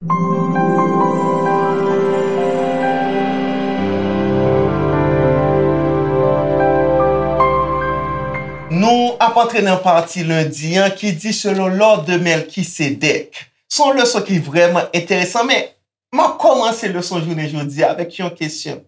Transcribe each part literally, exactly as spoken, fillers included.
Nou ap antre nan pati lendi an ki di selon l'ordre de Melchisédek. Se yon leson ki vrèman enteresan, men m ap kòmanse leson jounen jodi a avèk yon kesyon.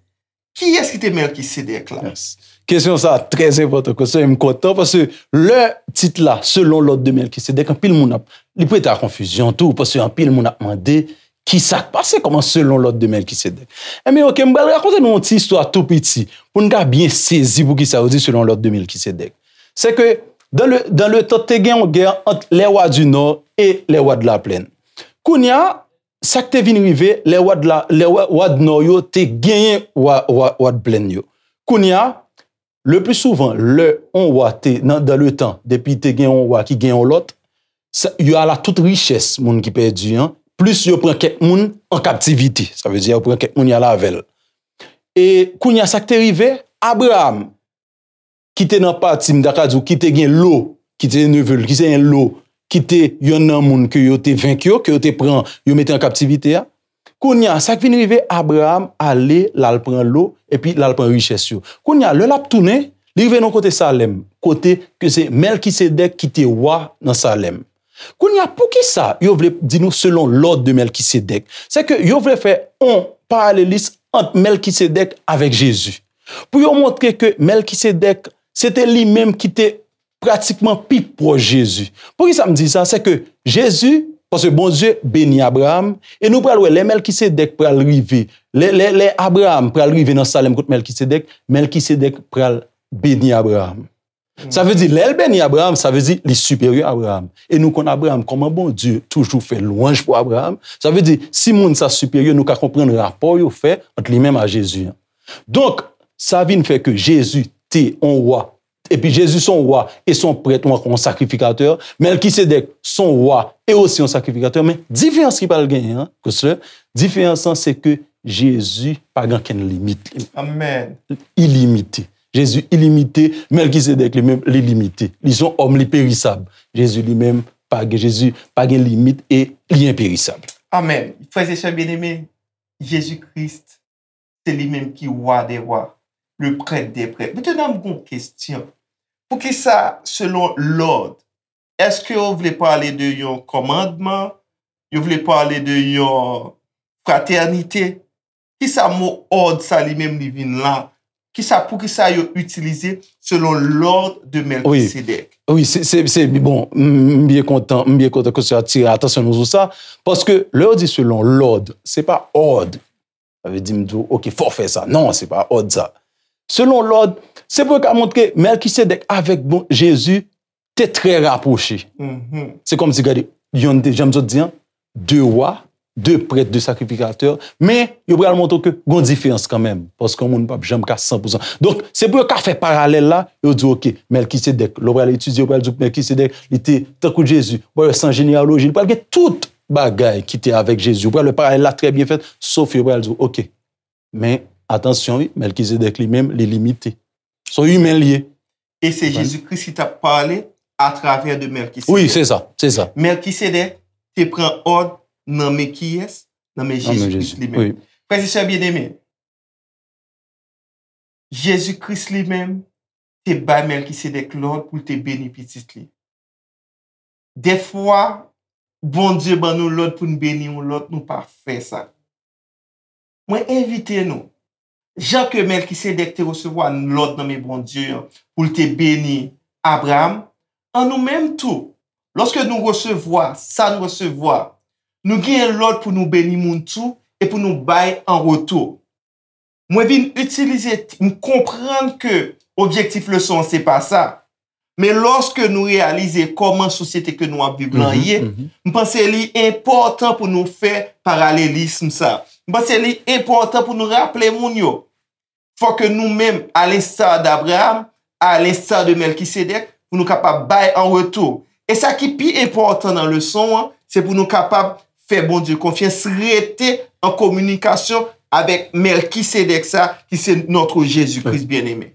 Kiyès ki te Melchisédek la? Yes. Kesyon sa a trè enpòtan, kesyon, m kontan, paske lè tit la, selon l'ordre de Melchisédek, anpil moun ap, li prete a konfizyon tou, paske anpil moun ap mande, ki sa k pase, kòman selon l'ordre de Melchisédek? Enben, oke, m pral rakonte nou yon ti istwa tou piti, pou n ka byen sezi poukisa yo di selon l'ordre de Melchisédek. Se ke, dans le, dans le temps, te gen yon gè ant les rois du nord et les rois de la plaine. Kounye a, sa k te vin rive, lè wa d la, lè wa, wa d nò yo te genyen wa, wa, wa d plèn yo. Kounye a, le pli souvan, lè yon wa te, nan, dans le temps, depi te gen yon wa ki gen yon lòt, sa, y a la tout richès moun ki pèdi an, plis yo pran kèk moun an kaptivite. Sa vle di, yo pran kèk moun y al avè l. E kounye a, sa k te rive, Abraram, ki te nan pati, m ta ka di w, ki te gen Lo, ki te neve l, ki te gen Lo, ki te yonn nan moun ke yo te venk yo, ke yo te pran, yo mete an kaptivite a. Kounye a, sa k vin rive, Abraram ale, l al pran Lo, epi l al pran richès yo. Kounye a, lè l ap tounen, li rive nan kote Salèm, kote ke se Mèlkisedèk ki te wa nan Salèm. Kounye a, poukisa yo vle di nou selon l'ordre de Melchisedèk? Se ke yo vle fè yon paralelis ant Mèlkisedèk avèk Jezi. Pou yo montre ke Mèlkisedèk, se te li menm ki te pratikman pi pwòch Jezi. Poukisa m di sa? Se ke Jezi, paske Bondye beni Abraram, e nou pral wè lè Mèlkisedèk pral rive, lè, lè, lè Abraram pral rive nan Salèm kot Mèlkisedèk, Mèlkisedèk pral beni Abraram. Sa vle di, lè l beni Abraram, sa vle di li siperyè Abraram. E nou konn Abraram, kòman Bondye toujou fè lwanj pou Abraram. Sa vle di, si moun sa siperyè, nou ka konprann rapò yo fè ant li menm a Jezi an. Donk, sa vin fè ke Jezi te yon wa. Epi Jezi se yon wa, e se yon prèt, ou ankò yon sakrifikatè. Mèlkisedèk se yon wa, e osi yon sakrifikatè. Men diferans ki pral genyen an, Christler, diferans lan se ke Jezi pa gen okenn limit li. Amèn. Ilimite. Jezi ilimite, Mèlkisedèk li menm, li limite. Li se yon òm, li perisab. Jezi li menm, pa gen, Jezi pa gen limit e li enperisab. Amèn. Frè e sè byeneme, Jezi Kris, se li menm ki wa dè wa, le prèt dè prèt. Mentnan, m gen yon kesyon. Poukisa, selon l'ordre, èske yo vle pale de yon kòmandman? Yo vle pale de yon fratènite? Kisa mo òd sa li menm li vin la? Kisa, poukisa yo itilize selon l'ordre de Melchisedèk? Wi, se, se, se, bon, m, m byen kontan, m byen kontan ke w atire atansyon nou sou sa, paske lè yo di selon l'ordre, se pa òd. Sa vle di m di w, oke, fò w fè sa. Non, se pa òd sa. Selon l'ordre, se pou yo ka montre Mèlkisedèk avèk bon, Jezi te trè rapwoche. Se kòmsi, gade, yonn te, jan m sot di an, de wa, de prèt, de sakrifikatè, men yo pral montre w ke gon diferans kanmenm, paske yon moun p ap janm ka san pou san. Donk, se pou yo ka fè paralèl la, yo di, oke, Mèlkisedèk, lè w pral etidye, yo pral di w Mèlkisedèk, li te tankou Jezi, w pral wè san jeneyaloji, li pral gen tout bagay ki te avèk Jezi. Ou pral wè paralèl la trè byen fèt, sof yo pral di w, oke. Men, atansyon, wi, Mèlkisedèk li menm, li limite. Se yon imen l ye. E se Jezi Kris ki t ap pale atravè de Mèlkisedèk. Wi, se sa, se sa. Mèlkisedèk te pran òd nan men kiyès? Nan men Jezi Kris li menm. Frè e sè byeneme, Jezi Kris li menm te bay Mèlkisedèk lòd pou l te beni pitit li. Dèfwa, Bondye ban nou lòd pou n beni yon lòt, nou pa fè sa. Mwen envite nou, jan ke Mèlkisedèk te resevwa lòd nan men Bondye an pou l te beni Abraram, an nou menm tou, lòske nou resevwa sa n resevwa, nou genyen lòd pou nou beni moun tou e pou nou bay an retou. Mwen vin itilize, m konprann ke objektif leson an se pa sa. Men lòske nou reyalize kòman sosyete ke nou ap viv lan ye, m panse li enpòtan pou nou fè paralelism sa. M panse li enpòtan pou nou raple moun yo. Fò ke nou menm, à l'instar d'Abraham, à l'instar de Mèlkisedèk, pou nou kapab bay an retou. E sa ki pi enpòtan nan leson an, se pou nou kapab fè Bondye konfyans, rete an kominikasyon avèk Mèlkisedèk sa, ki se notre Jésus-Christ bien-aimé.